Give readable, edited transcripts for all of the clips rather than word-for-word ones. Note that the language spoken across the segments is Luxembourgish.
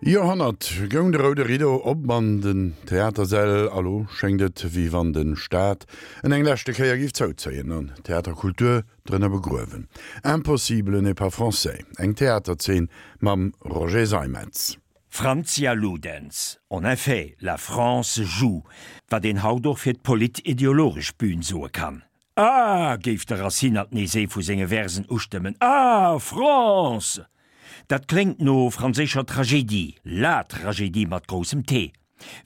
Joerhonnert goung de roude Rideau op an den Theatersäll a lo schéngt et, wéi wann de Staat en eng leschte Kéier géif zouzéien an d'Theaterkultur drënner begruewen. Impossible n'est pas français, eng Theaterzeen mam Roger Seimetz. Francia Ludens, En effet, la France joue, wat een haut och fir d'polit-ideologesch Bühn soe kann. Ah! géif de Racine alt nees ee vu senge Versen ustëmmen, Ah! France! Dat kléngt no franséischer Tragédie, la Tragédie mat groussem T.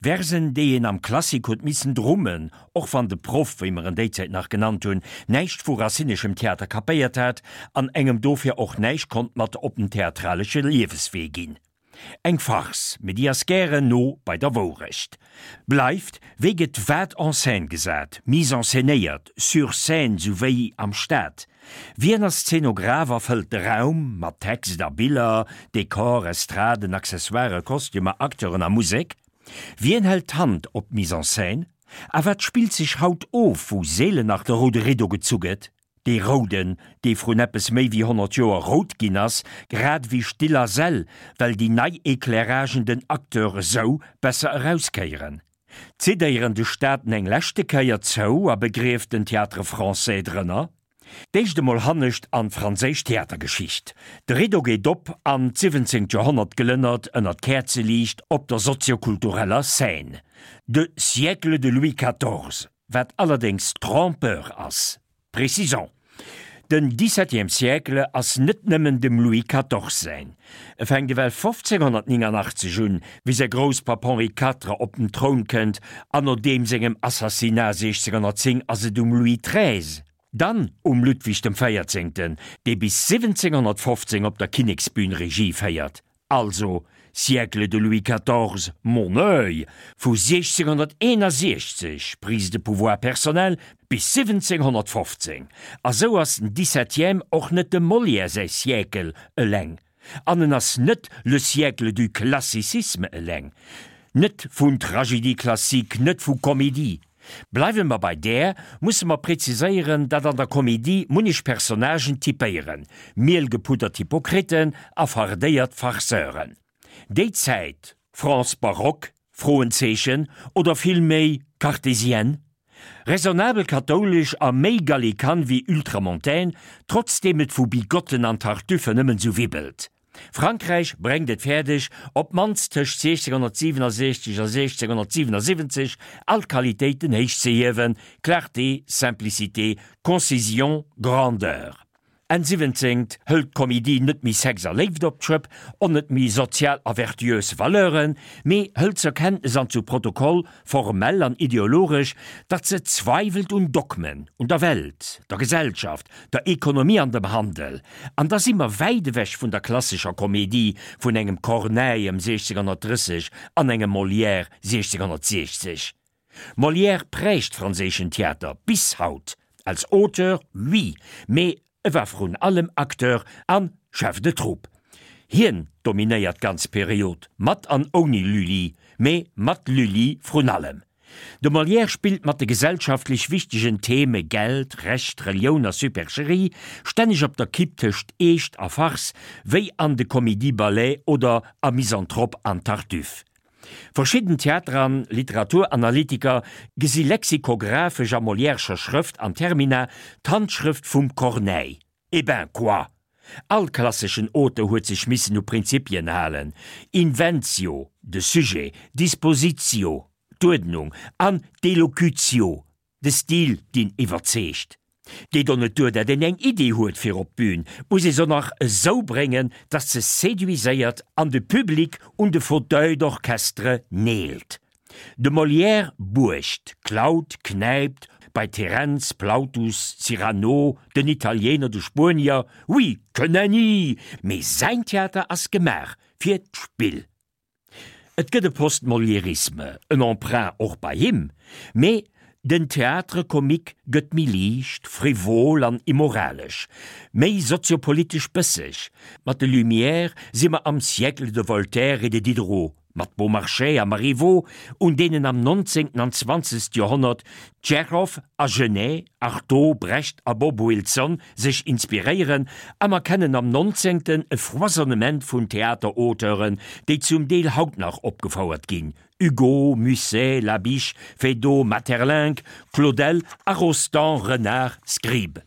Versen, déi een am Klassik huet missen drummen, och wann de Proff, wéi mer en déizäit nach genannt hunn, näischt vu racineschem Theater kapéiert hat an engem dofir och näischt konnt mat op den theatralesche Lieweswee ginn. Eng Farce, mee déi ass gären no bei der Wourecht. Bleift, wéi gëtt wat en scène gesat, mise en scénéiert, sur scène souwéi am Stad? Wien ass Zeenograph a fëllt de Raum mat Text a Biller, Dekor, Estraden, Accessoiren, Kostümer, Acteuren a Musek? Wien hält d'Hand op d'Mise en scène? A wat spillt sech haut of, wou seelen nach de roude Rideau gezu gëtt? Dee rouden, dee vrun eppes méi wéi 100 Joer rout ginn ass, grad ewéi Still a Säll, well déi nei Éclairagen den Acteur esou besser erauskéieren. Zidéieren de Staaten eng leschte Kéier zou a begrieft den Théâtre Français drënner? D'éischt emol hannescht an d'franséisch Theatergeschicht. De Rideau geet op an d'siwwenzéngt Joerhonnert glënnert ënner d'Käerzeliicht op der soziokultureller Scène. De Siècle de Louis quatorze. Wat allerdéngs trompeur ass. Précisons, Den dix-septième siècle ass net nëmmen dem Louis quatorze säin. E fänkt ewell 1589 un, wéi säi Grousspapp Henri Quatre op den Troun kënnt, an no deem sengem Assassinat 1610 ass et um Louis treize, dann um Ludwig dem Véierzéngten, dee bis 1715 op der Kinneksbün Regie féiert. Also, Siècle de Louis quatorze, mon oeil, vu 1661, prise de pouvoir personnelle, bis 1715. A sou ass den Dix-septième och net dem Molière säi Siècle eleng. An en ass net le siècle du classicisme eleng. Net vun Tragédie classique, net vu Comédie. Bleiwe mer bei där, musse mer preziséieren, datt an der Komedie munnech Personnagen typéieren, mielgepuddert Hypokriten a fardéiert Farceuren. Déi Zäit, France baroque? Froenzeechen, oder villméi cartésienne? Raisonnabel kathoulesch a méi gallikan wéi ultramontaine, trotzdeem et vu Bigotten an Tartuffe nëmmen sou wibbelt. Frankräich bréngt et fäerdeg, op d'mannst tëscht 1667 a 1677 all d'Qualitéiten héich ze hiewen, Clarté, Simplicité, Concision, Grandeur. Enn siwwenzéngt hëlt d'Comédie net méi Sex a Léift op d'Schëpp, on net méi sozial a vertuös Valeuren, mee hëlt zur Kenntnes an zu Protokoll, formell an ideologesch, datt se zweiwelt un Dogmen, un der Welt, der Gesellschaft, der Ekonomie an dem Handel. An da si mer wäit ewech vun der klassescher Komedie vun engem Corneille ëm 1630 an engem Molière 1660. Molière prägt franséischen Theater bis haut, als Auteur, oui, mee E war vrun allem Acteur an Chef de troupe. Hien dominéiert d'ganz Period, mat an ouni Lully, mee mat Lully vrun allem. De Molière spillt mat de gesellschaftlech wichtegen Theme Geld, Recht, Relioun a Supercherie, stänneg op der Kipp tëscht Eescht a Farce, wéi an de Comédie-Ballet oder a Misanthrope an Tartuffe. Verschidden Theater an Literaturanalytiker gesi lexikographesch a Molièrescher Schrëft an Termina d'Handschrëft vum Corneille. Eh ben, quoi! All klasseschen Auteur huet sech missen u Prinzipien halen, Inventio, de Sujet, Dispositio, d'Uerdnung, an d'Elocutio, De Stil deen iwwerzeegt. Geet och net duer dat een eng Idee huet fir op d'Bühn, muss ee se nach esou bréngen dass se séduiséiert an de Public un de Fauteuil d'orchestre neelt. De Molière buergt, klaut, knäipt bei Terenz, Plautus, Cyrano, den Italiener, de Spuenier, oui, que nenni! Mee säin Theater ass gemaach fir d'Spill. Et gëtt e Post-Moliérisme, en Emprunt och bei him, mee den Théâtre comique gëtt méi liicht, frivol an immoralesch, méi soziopolitesch bësseg. Mat de Lumières si mer am Siècle de Voltaire et de Diderot. Mat Beaumarchais a Marivaux, un deenen am 19. an 20. Joerhonnert Tschechow a Genet, Artaud, Brecht a Bob Wilson sech inspiréieren, a mer kennen am 19. e Foisonnement vun Theaterauteuren, déi zum Deel haut nach opgefouert ginn, Hugo, Musset, Labiche, Feydeau, Maeterlinck, Claudel a Rostand, Renard, Scribe.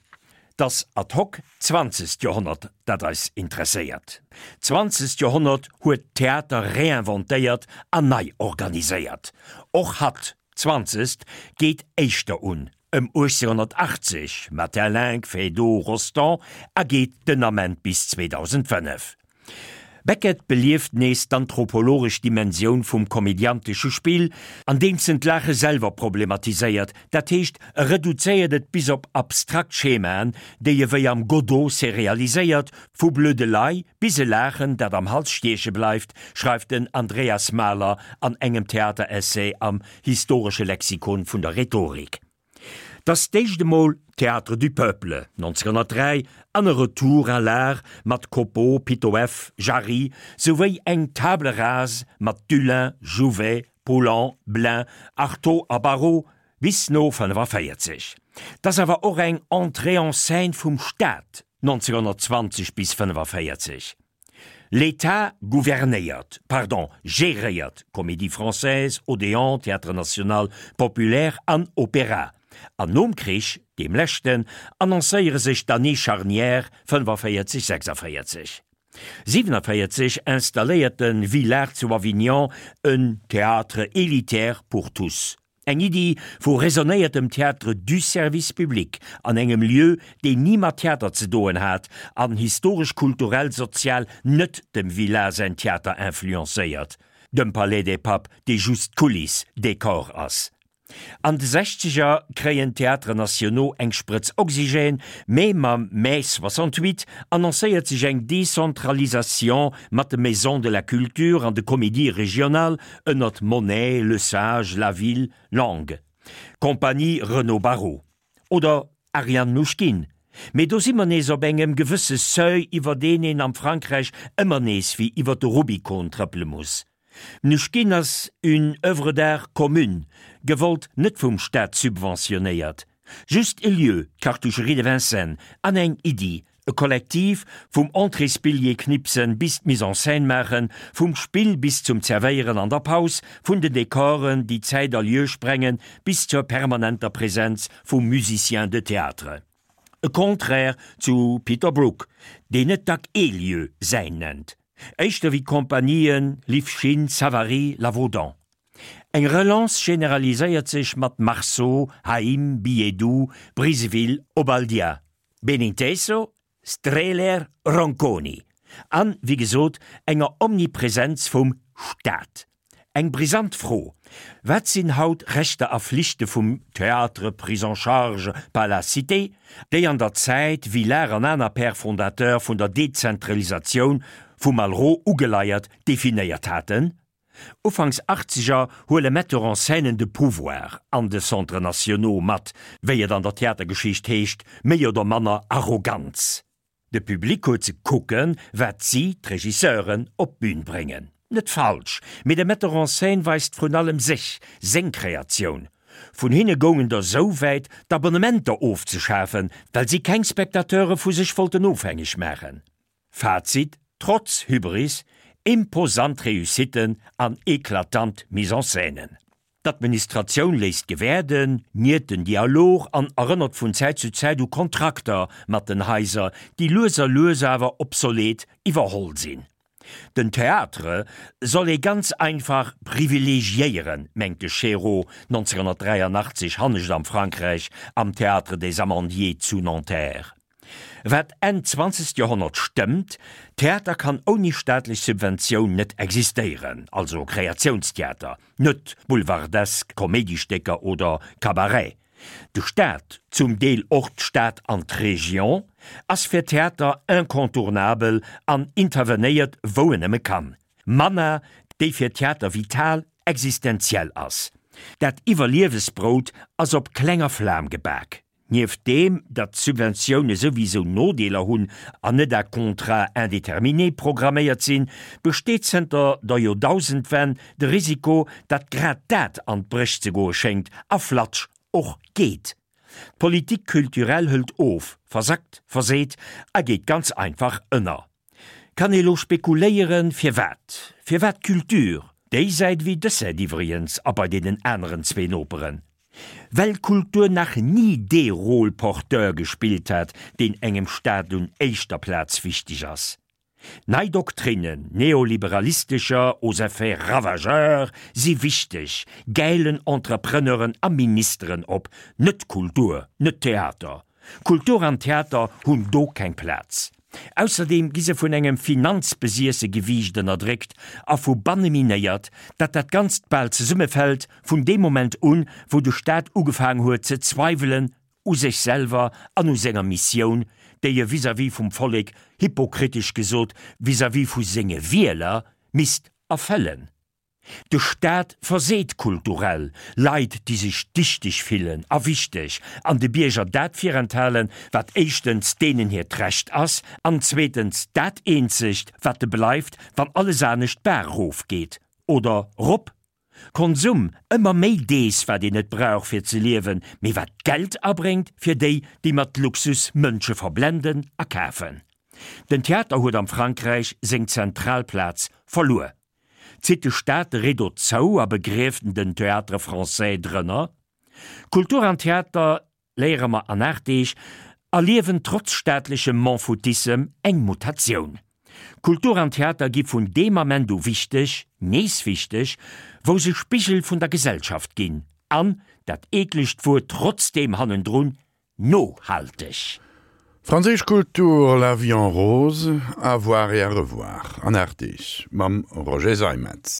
't ass ad hoc d'zwanzegt Joerhonnert, dat eis interesséiert. D'zwanzegt Joerhonnert huet d'Theater réinventéiert an nei organiséiert. Och hatt, d'zwanzegt, geet éischter un, ëm 1880, Maeterlinck, Feydeau, Rostand, a geet den Ament bis 2005. Beckett belieft nees d'anthropologesch Dimensioun vum komödiantesche Spill, andeems en d'Laache selwer problematiséiert, dat heescht, e reduzéiert et bis op abstrakt Schemaen, déi e wéi am Godot serialiséiert, vu Blödelei bis e Laachen, dat am Hals stieche bleift, schreift den Andreas Mahler an engem Theateressay am Historesche Lexikon vun der Rhetorik. T'ass d'éischt emol Théâtre du Peuple, 1903, an e Retour à l'art mat Copeau, Pitoëff, Jarry, souwéi eng Table rase mat Dullin, Jouvet, Poulan, Blin, Arthaud a Barrault bis no 45. T'ass awer och eng Entrée en scène vum Staat, 1920 bis 45. L'État gouvernéiert, pardon, géréiert Comédie Française, Odéon, Théâtre National, Populaire an Opéra. An nom Krich, deem leschten, annoncéiere sech d'Années charnières 45, 46. 47 installéiert de Villard zu Avignon en Théâtre élitaire pour tous. Eng Iddi vu raisonnéiertem Théâtre du service public an engem Lieu, deen ni mat Theater ze doen hat an historesch-kulturell, sozial net dem Villard säin Theater influencéiert, dem Palais des Papes, dee just Kuliss, Décor ass. An de Sechzeger kréien d'Théâtres nationaux eng Sprëtz Oxygène, mee mam Mai 68 annoncéiert sech eng Décentralisation mat de Maisons de la Culture an de Comédies régionales ënnert Monet, Le Sage, Laville, Lang, Compagnie Renaud Barrault oder Ariane Mnouchkine. Mee do si mer nees op engem gewësse Seuil, iwwer deen een am Frankräich ëmmer nees wéi iwwer de Rubikon trëppele muss. Mnouchkine ass une œuvre d'art commune, gewollt net vum Staat subventionéiert. Just e Lieu, d'Cartoucherie de Vincennes, an eng Iddi, e Kollektiv, vum Entréesbilljee knipsen bis d'Mise en scène maachen, vum Spill bis zum Zerwéieren an der Paus, vun den Dekoren, déi Zäit a Lieu sprengen, bis zur permanenter Präsenz vum Musicien de théâtre. E Contraire zu Peter Brook, deen net dack ee Lieu säin nennt, éischter wéi d'Compagnien Lifschine, Savary, Lavaudan. Eng Relance generaliséiert sech mat Marceau, Haïm, Billetdoux, Briseville, Obaldia, Beninteso, Strehler, Ronconi an, wéi gesot, enger Omnipresenz vum Staat. Eng brisant Fro, Wat sinn haut Rechter a Flichte vum Théâtre pris en charge par la cité, déi an der Zäit, Villard an aner Pères fondateurs vun der Dezentralisatioun, vu Malraux ugeleiert, definéiert haten? Ufanks Achtzeger huele Metteurs en scènen de pouvoir an de Centres nationaux mat, wéi et an der Theatergeschicht heescht, méi oder manner Arroganz. De Public huet ze kucken, wat si, d'Regisseuren, op d'Bün bréngen. Net falsch, mee de Metteur en scène weist vrun allem sech, seng Kreatioun. Vun hinne goungen der sou wäit, d'Abonnementer ofzeschafen, well si keng Spectateure vu sech wollten ofhängeg maachen. Fazit, Trotz Hybris, imposant Réussitten an eklatant Mise-en-scènen. D'Administratioun léisst gewäerden, niert den Dialog an erënnert vun Zäit zu Zäit u Kontrakter mat den Haiser, déi lues a lues awer obsolet iwwerholl sinn. Den Théâtre soll ee ganz einfach privilegiéieren, mengt de Chéreau 1983 hannescht am Frankräich am Théâtre des Amandiers zu Nanterre. Wat Enn zwanzegt Joerhonnert stëmmt, Theater kann ouni staatlech Subventioun net existéieren, also Kreatiounstheater, net boulevardesk Koméidistécker oder Cabaret. De Staat, zum Deel och d'Stad an d'Region, ass fir Theater incontournabel an intervenéiert wou en nëmme kann. Manner, déi fir Theater vital, existenziell ass. Dat Iwwerliewesbrout ass op klenger Flam gebak. Nieft deem, datt d'Subventioune souwisou Nodeeler hunn an net à contrat indéterminé programméiert sinn, besteet zënter der Joerdausendwenn de Risiko, datt grad dat an d'Bréch ze goe schéngt a flatsch och geet. D'Politique culturelle hëlt of, versackt, verseet a geet ganz einfach ënner. Kann ee lo spekuléieren, firwat? Firwat d'Culture? Déi Säit ewéi dës Säit iwwregens a bei deenen aneren zwee Noperen. Well Kultur nach ni dee Rôle porteur gespillt hat, deen engem Staat un éischter Plaz wichteg ass. Nei Doktrinnen neoliberalistescher aux effets ravageurs si wichteg, gäilen Entrepreneuren a Ministeren op, net Kultur, net Theater. Kultur an Theater hunn do keng Plaz. Ausserdeem gi se vun engem finanzbesiesse Gewiicht ënnerdréckt a vu banne minéiert, dat dat Ganzt bal zesummefält vun deem Moment un, wou de Staat ugefaang huet ze zweiwelen u sech selwer an u senger Missioun, déi e vis-à-vis vum Vollek, hypokritesch gesot, vis-à-vis vu senge Wieler, misst erfëllen. De Staat verseet kulturell Leit, déi sech dichteg fillen a wichteg, an de Bierger dat virenthalen, wat éischtens deenen hiert Recht ass, an zweetens dat eenzegt, wat de bleift, wann alles anescht d'Baach erofgeet. Oder rop. Konsum, ëmmer méi dees, wat een net brauch fir ze liewen, mee wat Geld abréngt fir déi, déi mat Luxus Mënsche verblenden a kafen. Den Theater huet am Frankräich seng zentral Plaz verluer. Zitt de Staat de Rideau zou a begrieft en den Théâtre Français drënner? Kultur an Theater, léiere mer an 8 Deeg, erliewen trotz staatlechem M'en-foutissem eng Mutatioun. Kultur an Theater gi vun deem Ament u wichteg, nees wichteg, wou se Spigel vun der Gesellschaft ginn an, dat eeklegt Wuert trotzdeem hannendrun, Nohalteg. Franséisch Kultur, La vie en rose, à voir et à revoir an 8 Deeg mam Roger Seimetz.